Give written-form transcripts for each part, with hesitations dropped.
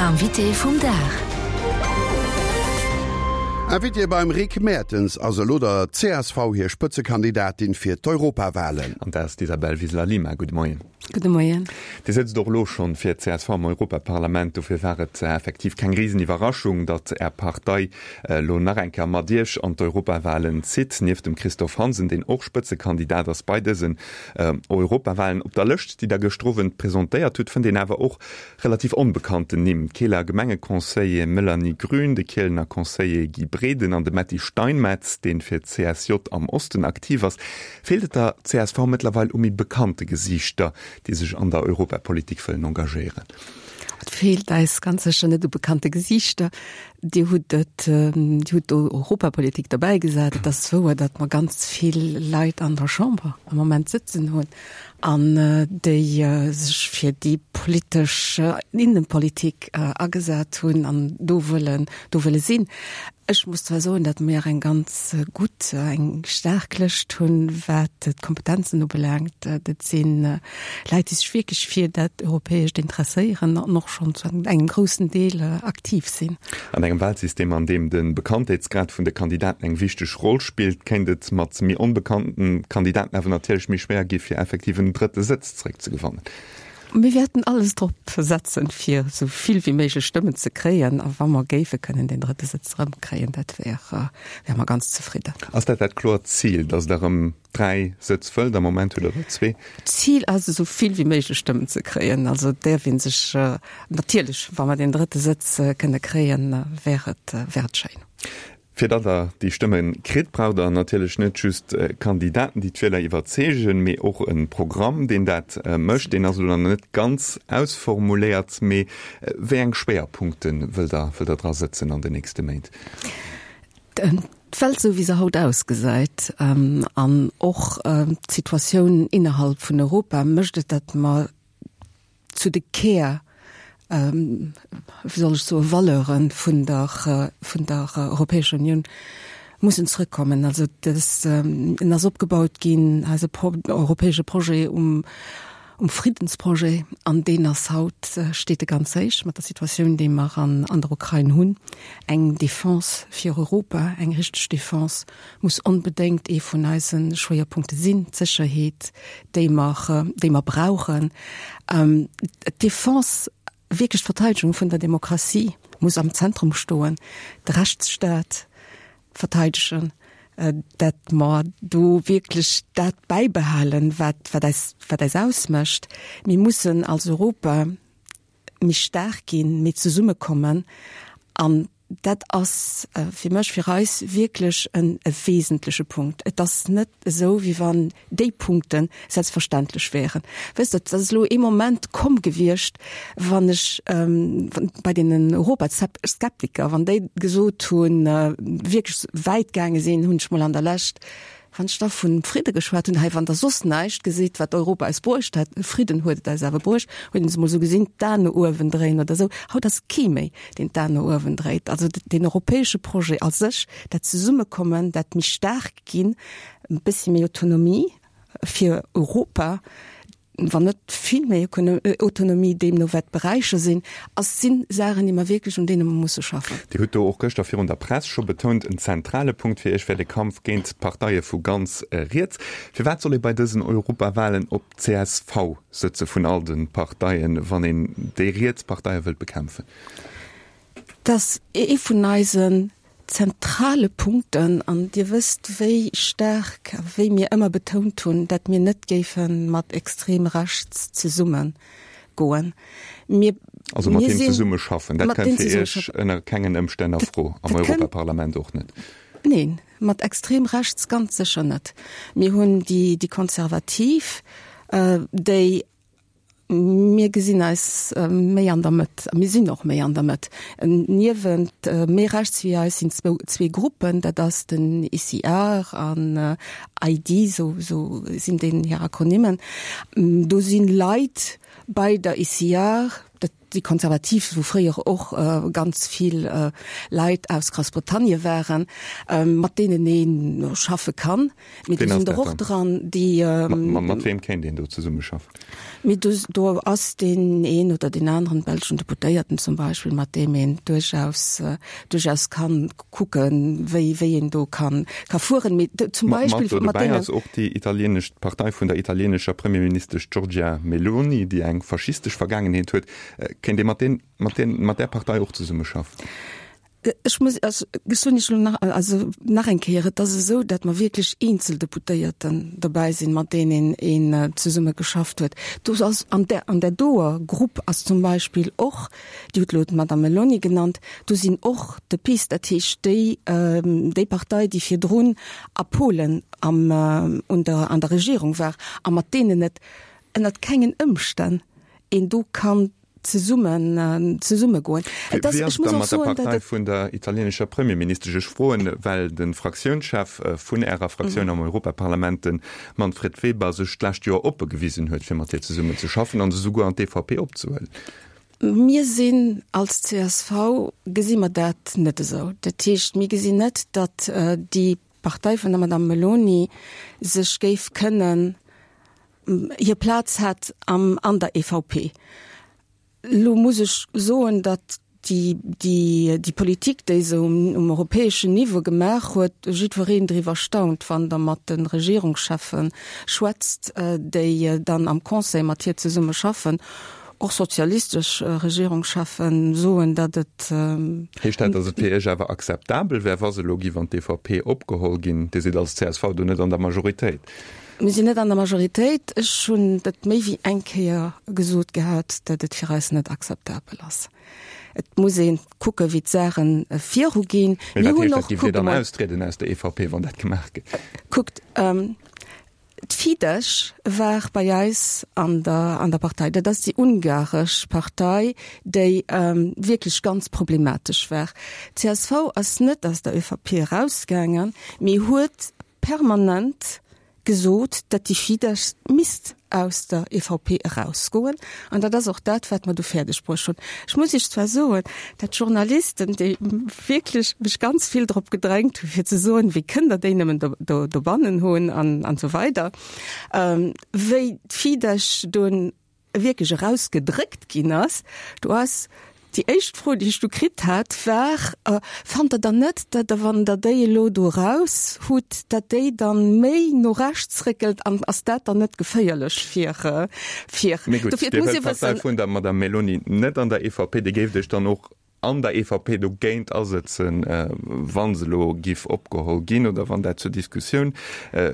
L'invité vum Dag. Invitée beim Rick Mertens ass elo der csv hir Spëtzekandidatin fir d'Europawahlen. An dat ass d'Isabel Wiseler-Lima. Gudde Moien. Gudde Moien. Dir sëtzt och elo schonn fir d'CSV am Europaparlament. Dofir war et effektiv keng Riseniwwerraschung, datt Är Partei elo nach eng Kéier mat Iech an d'Europawahlen zitt. Nieft dem Christophe Hansen, deen och Spëtzekandidat ass bei dësen Europawahlen. Op der Lëscht, déi Der gëschter Owend presentéiert hutt, fënnt een awer och relativ onbekannten Nimm, d'Keeler Gemengeconseiller Melanie Grün, de Kielener Conseiller Guy Breden an de Metty Steinmetz, deen fir d'CSJ am Osten aktiv ass. Feelt et der csv mëttlerweil u méi bekannte Gesiichter, déi sech an der Europapolitik wëllen engagéieren? Et feelt eis ganz sécher net u bekannte Gesiichter. Dir hutt et, Dir hutt do Europapolitik derbäigesat. Et ass wouer, datt mer ganz vill Leit an der Chamber am Moment sëtzen hunn an déi sech fir déi politesch Innenpolitik agesat hunn an do wëllen, do wëlle sinn. Ech muss zwar soen, datt mir eng ganz gutt, eng staark Lëscht hunn, wat d'Kompetenzen ubelaangt. Dat si Leit, déi sech wierklech fir dat Europäescht interesséieren an och schonn zu engem groussen Deel aktiv sinn. An engem Wahlsystem, an deem de Bekanntheetsgrad vun de Kandidaten eng wichteg Roll spillt, kéint et mat méi onbekannten Kandidaten awer natierlech méi schwéier gi fir effektiv en drëtte Sëtz zeréckzegewannen. Mir wäerten alles drop setzen, fir esou vill wéi méiglech Stëmmen ze kréien. A wa mer géife kënnen deen drëtte Sëtz erëmkréien, dat wär, wäre mer ganz zefridden. Ass dat dat kloert Zil, datt Der erëm 3 Sëtz wëllt? Am Moment hutt Der der zwee. D'Zil ass, esou vill wéi méiglech Stëmmen ze kréien. Also et däerf ee sech natierlech, wa mer deen drëtte Sëtz kënne kréien, wär et, wär et schéin. Fir datt Der déi Stëmme kritt, braucht Der natierlech net just Kandidaten, déi d'Wieler iwwerzeegen, mee och e Programm, deen dat mécht. Deen ass elo nach net ganz ausformuléiert, mee wéi eng Schwéierpunkte wëllt Der, wëllt Der dra sëtzen an den nächste Méint? D'Welt esou wéi se haut ausgesäit an och d'Situatioun innerhalb vun Europa mécht et, datt mer zu de Kär, wéi soll ech soen, Valeure vun der, vun der Europäescher Unioun mussen zrëckkommen. Also dës, en ass opgebaut ginn, eise europäesche Projet, um, um Friddensprojet, an deen ass haut, steet e ganz héich mat der Situatioun, déi mer an, an der Ukrain hunn. Eng Defense fir Europa, eng richteg Defense muss onbedéngt ee vun eise Schwéierpunkte sinn, d'Sécherheet, déi mer, déi mer brauchen. D'Defense, wierklech d'Verteidegung vun der Demokratie muss am Zentrum stoen, de Rechtsstaat verteidegen, dat mer do wierklech dat bäibehalen, wat, wat eis, wat eis ausmécht. Mir mussen als Europa méi staark ginn, méi zesummekommen an dat ass fir mech, fir eis wierklech en e wesentleche Punkt. Et ass net esou, wéi wann déi Punkte selbstverständlech wären. Wësst Der, et ass elo ee Moment komm gewiescht, wann ech bei deenen Europaskeptiker, wann déi gesot hunn, wierklech wäit gaange sinn, hunn ech mol an der Lescht Wann ech da vun Fridde geschwat hunn, hei, wann Der soss näischt gesitt, wat Europa eis bruecht hätt, Fridden huet et eis awer bruecht, huet een se emol esou gesinn, d'Aen no uewen dréien oder esou. Haut ass kee méi, deen d'Aen no uewen dréit. Also deen europäesche Projet a sech, dat Zesummekommen, dat méi staark ginn, e bëssi méi Autonomie fir Europa, wann net vill méi Autonomie, deemno wat d'Beräicher sinn, ass, si Saachen, déi mer wierklech, un deene mer musse schaffen. Dir hutt do och gëschter virun der Press scho betount, en zentrale Punkt fir Iech wär de Kampf géint d'Parteie vu ganz riets. Firwat soll ee bei dësen Europawahlen op csv sëtze vun all de Parteien, wann een déi riets Parteie wëllt bekämpfen? Dat ass ee vun eisen zentrale Punkten, an Dir wësst, wéi staark a wéi mir ëmmer betount hunn, dat mir net géife mat extrem rechts zesumme goen. Mir, Also mat deem zesumme schaffen, dat kënnt fir Iech ënner kengen Ëmstänn a Fro, am Europaparlament och net? Neen, mat extrem rechts ganz sécher net. Mir hunn déi Konservativ, déi Mir gesinn eis méi an der Mëtt a mir sinn och méi an der Mëtt. Niewent méi rechts wéi eis sinn zwou, zwee Gruppen, dat ass den ECR an ID, sou, sou sinn deenen hir Akronymen. Do si Leit bei der ECR. Dat déi Konservativ, wou fréier och ganz vill Leit aus Groussbritannie waren, mat deenen ee schaffe kann. Mee do sinn der och dran, déi. Mat weem kéint een do zesummeschaffen? Mee do, do ass deen een oder deen aneren belschen Deputéierten zum Beispill, mat deem een duerchaus, duerchaus kann kucken, wéi, wéi een do kann, ka fueren. Mee zum Beispill mat deenen. Mat dobäi ass och déi italienesch, d'Partei vun der italienescher Premierministesch Giorgia Meloni, déi eng faschistesch Vergaangenheet huet. Kéint ee mat deen, mat deen, mat där Partei och zesummeschaffen? Ech muss, also ech soen Iech elo nach, also nach eng Kéier, et ass esou, datt mer wierklech eenzel Deputéierten dobäi sinn, mat deenen een zesumme geschafft huet. Do ass an där, an där doer Grupp ass zum Beispill och, Dir hutt elo d'Madame Meloni genannt, do sinn och de PiS, dat heescht déi, déi Partei, déi virdrun a Polen am, un der, an der Regierung war a mat deenen et ënnert kengen Ëmstänn een do kann zesummen, zesummegoen. Et ass, ech muss och soen, datt et. Wéi ass et da mat der Partei vun der italienescher Premierministesch? Ech froen, well de Fraktiounschef vun Ärer Fraktioun am Europaparlament, de Manfred Weber, sech d'lescht Joer oppe gewisen huet, fir mat hir zesummen ze schaffen an se souguer an d'EVP opzehuelen. Mir sinn als csv, gesi mer dat net esou. Dat heescht, mir gesinn net, datt déi Partei vun der Madame Meloni sech géif kënnen, hir Plaz hätt am, an der EVP. Elo muss ech soen, datt déi, déi, déi Politik, déi se um, um europäeschen Niveau gemaach huet, jiddwereen driwwer staunt, wann Der mat de Regierungscheffe schwätzt, déi dann am Conseil mat hir zesumme schaffen. Och sozialistesch Regierungscheffen soen, datt et. Heescht dat, datt et fir Iech awer akzeptabel wär, wa se elo giff an d'EVP opgeholl ginn? Dir sidd als csv do net an der Majoritéit. Mir sinn net an der Majoritéit. Ech hunn et méi wéi eng Kéier gesot gehat, datt et fir eis net akzeptabel ass. Et muss ee kucke wéi d'Saache viruginn. Mee wat heescht dat? Giff Dir dann austrieden aus der EVP, wann dat gemaach gëtt? Kuckt, D'Fidesz war bei eis an der, an der Partei. Dat ass déi ungaresch Partei, déi wierklech ganz problematesch war. D'CSV ass net aus der ÖVP erausgaangen, mee huet permanent gesot, datt déi Fidesz misst aus der EVP erausgoen. An dat ass och dat, wat mer du fäerdeg bruecht hunn. Ech muss Iech zwar soen, dat d'Journalisten, déi wierklech mech ganz vill drop gedrängt hunn, fir ze soen, wéi kënnt Der déi nëmmen do, do, dobannen hunn an, an esou weider, wéi d'Fidesz dunn wierklech erausgedréckt ginn ass, do ass déi éischt Fro, déi ech du kritt hat, war, Fannt Der dann net, datt Der, wann Der déi elo do eraus hutt, datt déi dann méi no rechts réckelt an ass dat dann net geféierlech fir, fir. Mee gutt, Dir wëllt d'Partei vun der Madame Meloni net an der EVP, Dir géift Iech dann och an der EVP dogéint asëtzen, wa se elo giff opgeholl ginn oder wann dat zur Diskussioun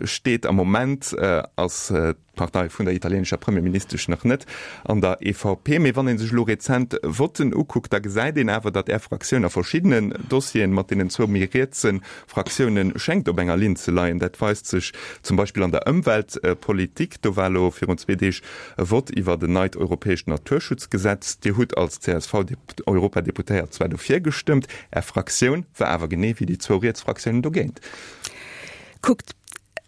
steet. Am Moment ass d'Partei vun der italienescher Premierministesch nach net an der EVP. Mee wann ee sech elo rezent Votten ukuckt, da gesäit een awer, datt Är Fraktioun a verschiddenen Dossieren mat deenen zwou méi rietse Fraktioune schéngt op enger Linn ze leien. Dat weist sech zum Beispill an der Ëmweltpolitik. Do war elo virun zwee Deeg e Vott iwwert en neit europäescht Naturschutzgesetz. Dir hutt als CSV-Europadeputéiert zwar dofir gestëmmt, Är Fraktioun war awer genee wéi déi zwou riets Fraktiounen dogéint. Kuckt,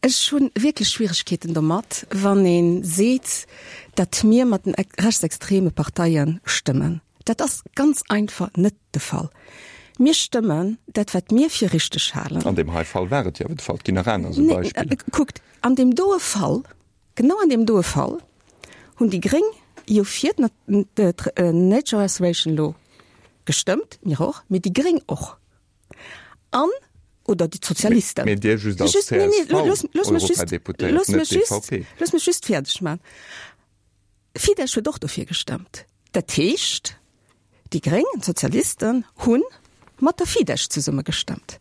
ech hu wierklech Schwieregkeeten domat, wann ee seet, datt mir mat den rechtsextreme Parteie stëmmen. Dat ass ganz einfach net de Fall. Mir stëmmen dat, wat mir fir richteg halen. An deem hei Fall war et jo awer de Fall. Et ginn nach aner esou Beispiller. Kuckt, an deem doe Fall, genau an deem doe Fall hunn déi Gréng jo fir d'Nature Restoration Law gestëmmt, mir och, mee déi Gréng och. An, oder déi Sozialisten. Mee Dir just als CSV-Europadeputéiert, net d'EVP. Looss mech just fäerdeg maachen. Fidesz huet och dofir gestëmmt. Dat heescht, déi Gréng an d'Sozialisten hu mat der Fidesz zesumme gestëmmt.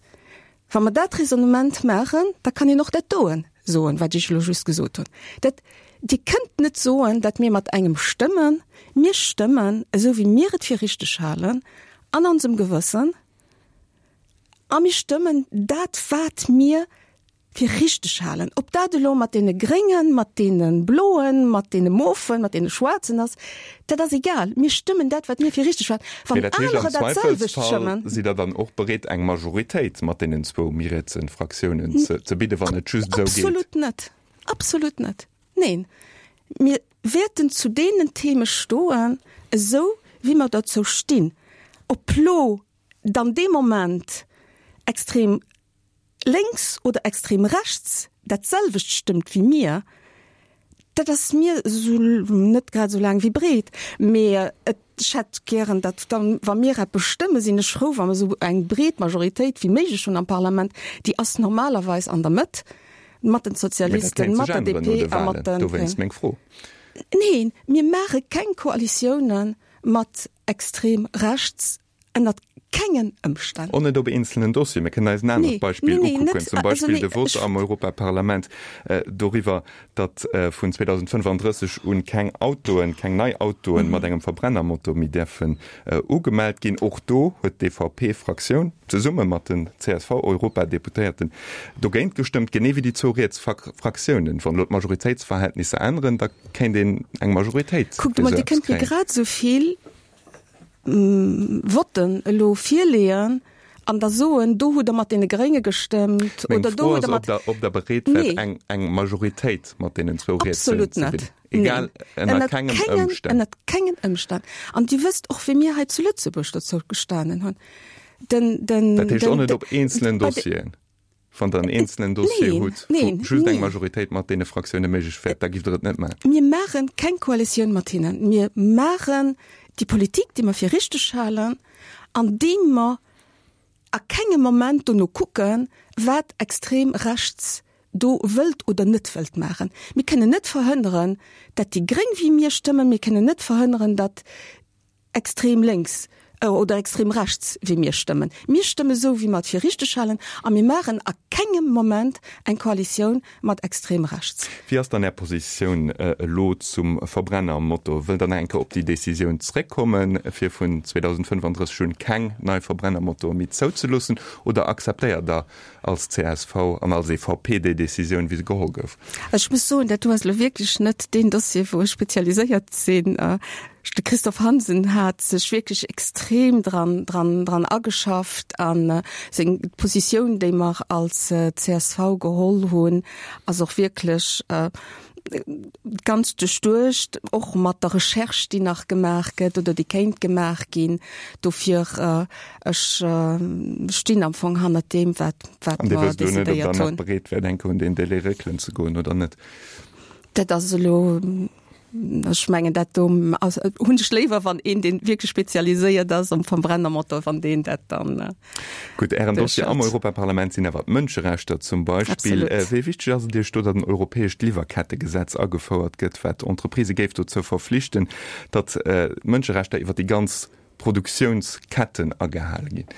Wa mer dat Raisonnement maachen, da kann een och dat doen soen, wat ech elo just gesot hunn. Dat, Dir kënnt net soen, datt mir mat engem stëmmen. Mir stëmmen esou, wéi mir et fir richteg halen an onsem Gewëssen a mir stëmmen dat, wat mir fir richteg halen. Ob dat elo mat deene Gréngen, mat deene Bloen, mat deene Mofen, mat deene Schwaarzen ass, dat ass egal. Mir stëmmen dat, wat mir fir richteg halen. Wann anerer dat selwecht stëmmen. Sidd Der dann och bereet, eng Majoritéit mat deenen zwou méi rietse Fraktiounen ze bidden, wann et just esou geet? Absolut net. Absolut net. Neen. Mir wäerten zu deenen Theme stoen, esou wéi mer dozou stinn. Ob lo dann dee Moment extrem lénks oder extrem rechts dat selwecht stëmmt wéi mir, dat ass mir esou net grad esou laang wéi breet. Mee et, ech hätt gären, datt dann, wa mir eppes stëmmen, sinn ech frou, wa mer esou eng breet Majoritéit wéi méiglech hunn am Parlament. Déi ass normalerweis an der Mëtt, mat den Mee dat Sozialisten, kéint mat sech der änneren no DP de a mat Wahlen. de Dowéinst Gréngen. meng Fro. Neen, mir maache keng Koalitioune mat extrem rechts, ënnert kengen Ëmstänn. Och net op eenzelnen Dossieren. Mir kënnen eis en anert Nee, Beispill nee, nee, ukucken, net, zum also Beispill nee, de Vote ech. am Europaparlament doriwwer, datt vun 2035 un keng Autoen, keng nei Autoen mat engem Verbrennermotor méi däerfen ugemellt ginn. Och do huet d'EVP-Fraktioun zesumme mat den CSV-Europadeputéierten dogéint gestëmmt, genee wéi déi zwou riets Fraktiounen. Wann elo d'Majoritéitsverhältnisser änneren, da kéint een eng Majoritéit Kuckt fir emol, esou Dir eppes kënnt mir kréien. grad esou vill Votten elo virleeën an da soen, do hutt Der mat deene Grénge gestëmmt Meng oder do Fro hutt ass, Der ob mat. Der, ob Der bereet wäert, Nee. eng, eng Majoritéit mat deenen zwou Rietsen Absolut ze net. bilden. Egal, Neen. ënner Ënnert kengem kengen, Ëmstänn. ënnert kengen Ëmstänn. An Dir wësst och, wéi mir hei zu Lëtzebuerg dozou gestanen hunn. Den, den, Dat heescht och den, net de, op eenzelen bei de, Dossieren. Wann Der en eenzelen Dossier Neen, hutt, wou neen, just eng neen. Majoritéit mat deene Fraktioune méiglech wär, da giff Der et net maachen. Mir maache keng Koalitioun mat hinnen. Mir maachen déi Politik, déi mer fir richteg halen, andeem mer a kengem Moment dono kucken, wat extrem rechts do wëllt oder net wëllt maachen. Mir kënnen net verhënneren, datt déi Gréng wéi mir stëmmen. Mir kënnen net verhënneren, datt extrem lénks oder extrem rechts wéi mir stëmmen. Mir stëmme sou, wéi mer et fir richteg halen a mir maachen a kengem Moment eng Koalitioun mat extrem rechts. Wéi ass dann Är Positioun elo zum Verbrennermotor? Wëllt Der nach eng Kéier op déi Décisioun zréckkommen, fir vun 2035 un keng nei Verbrennermotoren méi zouzeloossen, oder akzeptéiert Der als csv an als EVP déi Décisioun, wéi se geholl gouf? Ech muss soen, dat do ass elo wierklech net deen Dossier, wou ech spezialiséiert sinn. De Christophe Hansen hat sech wierklech extrem dran, dran, dran ageschafft a seng Positioun, déi mer als csv geholl hunn, ass och wierklech ganz duerchduecht, och mat der Recherche, déi nach gemaach gëtt oder déi kéint gemaach ginn. Dofir, ech stinn am Fong hannert deem, wat, wat An Dir mer wësst elo net, ob Der decidéiert nach hunn. bereet wäert, eng Kéier un deen Délai réckelen ze goen oder net? Dat ass elo Ech mengen dat do ass, hunn ech léiwer, wann een, deen wierklech spezialiséiert ass um Verbrennermotor, wann deen dat dann Gutt, Ären Dossier am duerchhëlt. Europaparlament sinn awer d'Mënscherechter zum Beispill. Absolut. Wéi wichteg ass et Iech do, datt en europäescht Liwwerkettegesetz agefouert gëtt, wat d'Entreprisë géif dozou verflichten, datt d'Mënscherechter iwwer déi ganz Produktiounsketten agehale ginn?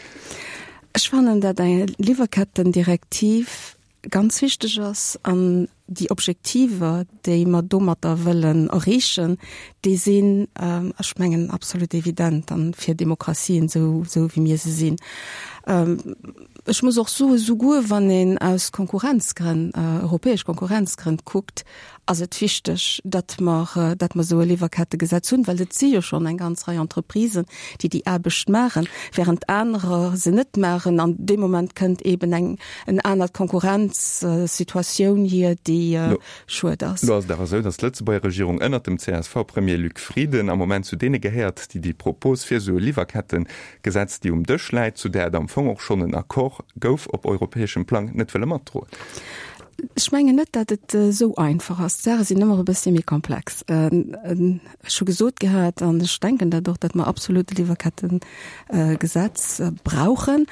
Ech fannen, datt eng Liwwerkettendirektiv ganz wichteg ass an déi Objektiver, déi mer domatter wëllen erreechen, déi sinn, ech mengen, absolut evident an fir Demokratien esou, esou wéi mir se sinn. Ech muss och soen, souguer wann een aus Konkurrenzgrënn, europäesch Konkurrenzgrënn kuckt, ass et wichteg, datt mer, datt mer esou e Liwwerkettegesetz hunn, well et si jo schonn eng ganz Rei Entreprisen, déi déi Aarbecht maachen, während anerer se net maachen. An dee Moment kënnt eeben eng en anert Konkurrenzsituatioun hier, déi schued ass. Lo ass et awer esou, datt d'Lëtzebuerger Regierung ënnert dem CSV-Premier Luc Frieden am Moment zu deene gehéiert, déi déi Propos fir esou e Liwwerkettegesetz, déi um Dësch läit, zu där et am Fong och schonn en Accord gouf op europäeschem Plang, net wëlle matdroen. Ech mengen net, datt et esou einfach ass. D'Saache sinn ëmmer e bëssche méi komplex. Ech hu gesot gehat, an ech denken dat och, datt mer absolut e Liwwerkettegesetz brauchen.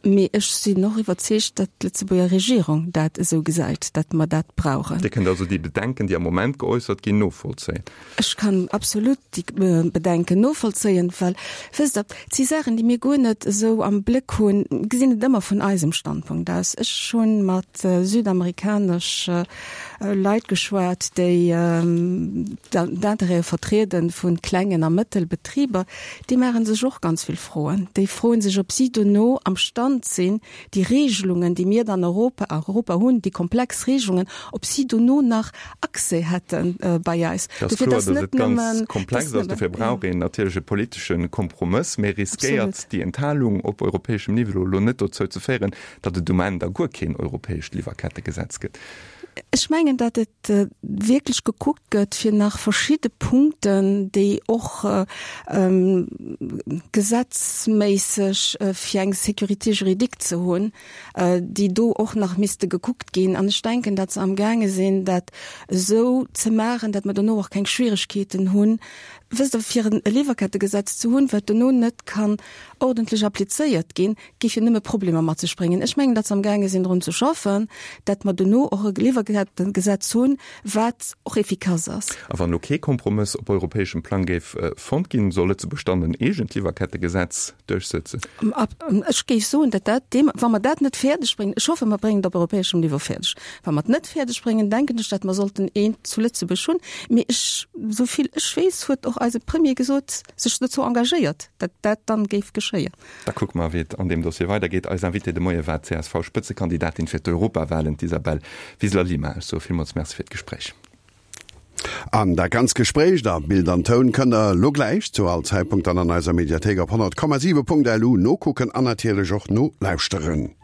Mee ech sinn och iwwerzeegt, datt d'Lëtzebuerger Regierung dat esou gesäit, datt mer dat brauchen. Dir kënnt also déi Bedenken, déi am Moment geäussert ginn, novollzéien? Ech kann absolut déi Bedenken novollzéien, well, wësst Der, et si Saachen, déi mir guer net esou am Bléck hunn, gesinn et ëmmer vun eisem Standpunkt aus. Ech hu mat südamerikanesch Leit geschwat, déi d'Intérêtë vertriede vu klengen a Mëttelbetriber. Déi maache sech och ganz vill Froen. Déi froe sech, ob si dono am Stand sinn, déi Regelungen, déi mir dann Europa, a Europa hunn, déi komplex Regelungen, ob si dono nach Accès hätte bei eis. Et ass Dofir, kloer, dass datt net et ganz nëmmen, komplex dass ass. Dofir nëmmen, brauch jo. een natierlech e politesche Kompromëss. Mee riskéiert Absolut. déi Enthalung op europäeschem Niveau elo net dozou ze féieren, datt et um Enn da guer keen europäescht Liwwerkettegesetz gëtt? Ech mengen, datt et wierklech gekuckt gëtt, fir nach verschidde Punkten, déi och gesetzméisseg fir eng Sécurité juridique ze hunn, déi do och nach misste gekuckt ginn. An ech denken, datt se amgaange sinn, dat esou ze maachen, datt mer dono och keng Schwieregkeeten hunn, wësst Der, fir e Liwwerkettegesetz ze hunn, wat dono net kann ordentlech applizéiert ginn, géif jo nëmme Problemer mat sech bréngen. Ech mengen, datt se amgaange sinn drun ze schaffen, datt mer dono och e Liwwerkettengesetz hunn, wat och efficace ass. A wann elo kee Kompromëss op europäeschem Plang géif fonnt ginn, soll Lëtzebuerg dann en eegent Liwwerkettegesetz duerchsëtzen? Ech géif soen, datt dat deem, wa mer dat net fäerdeg bréngen, ech hoffe mer bréngen et op europäeschem Niveau fäerdeg, wa mer et net fäerdeg bréngen, denken ech, datt mer sollten eent zu Lëtzebuerg hunn. Mee ech, esou vill ech weess, huet och eise Premier gesot, sech dozou engagéiert, datt dat dann géif geschéien. Da kucke mer, wéi et an deem Dossier weidergeet. Eis Invitée de Moie war d'CSV-Spëtzekandidatin fir d'Europawalen, d'Isabel Wiseler-Lima. Ech soe villmools Merci fir d'Gespréich. An dat ganzt Gespréich a Bild an Toun kënnt der elo gläich zu all Zäitpunkt dann an eiser Mediathéik op 100,7.lu nokucken an natierlech och nolauschteren.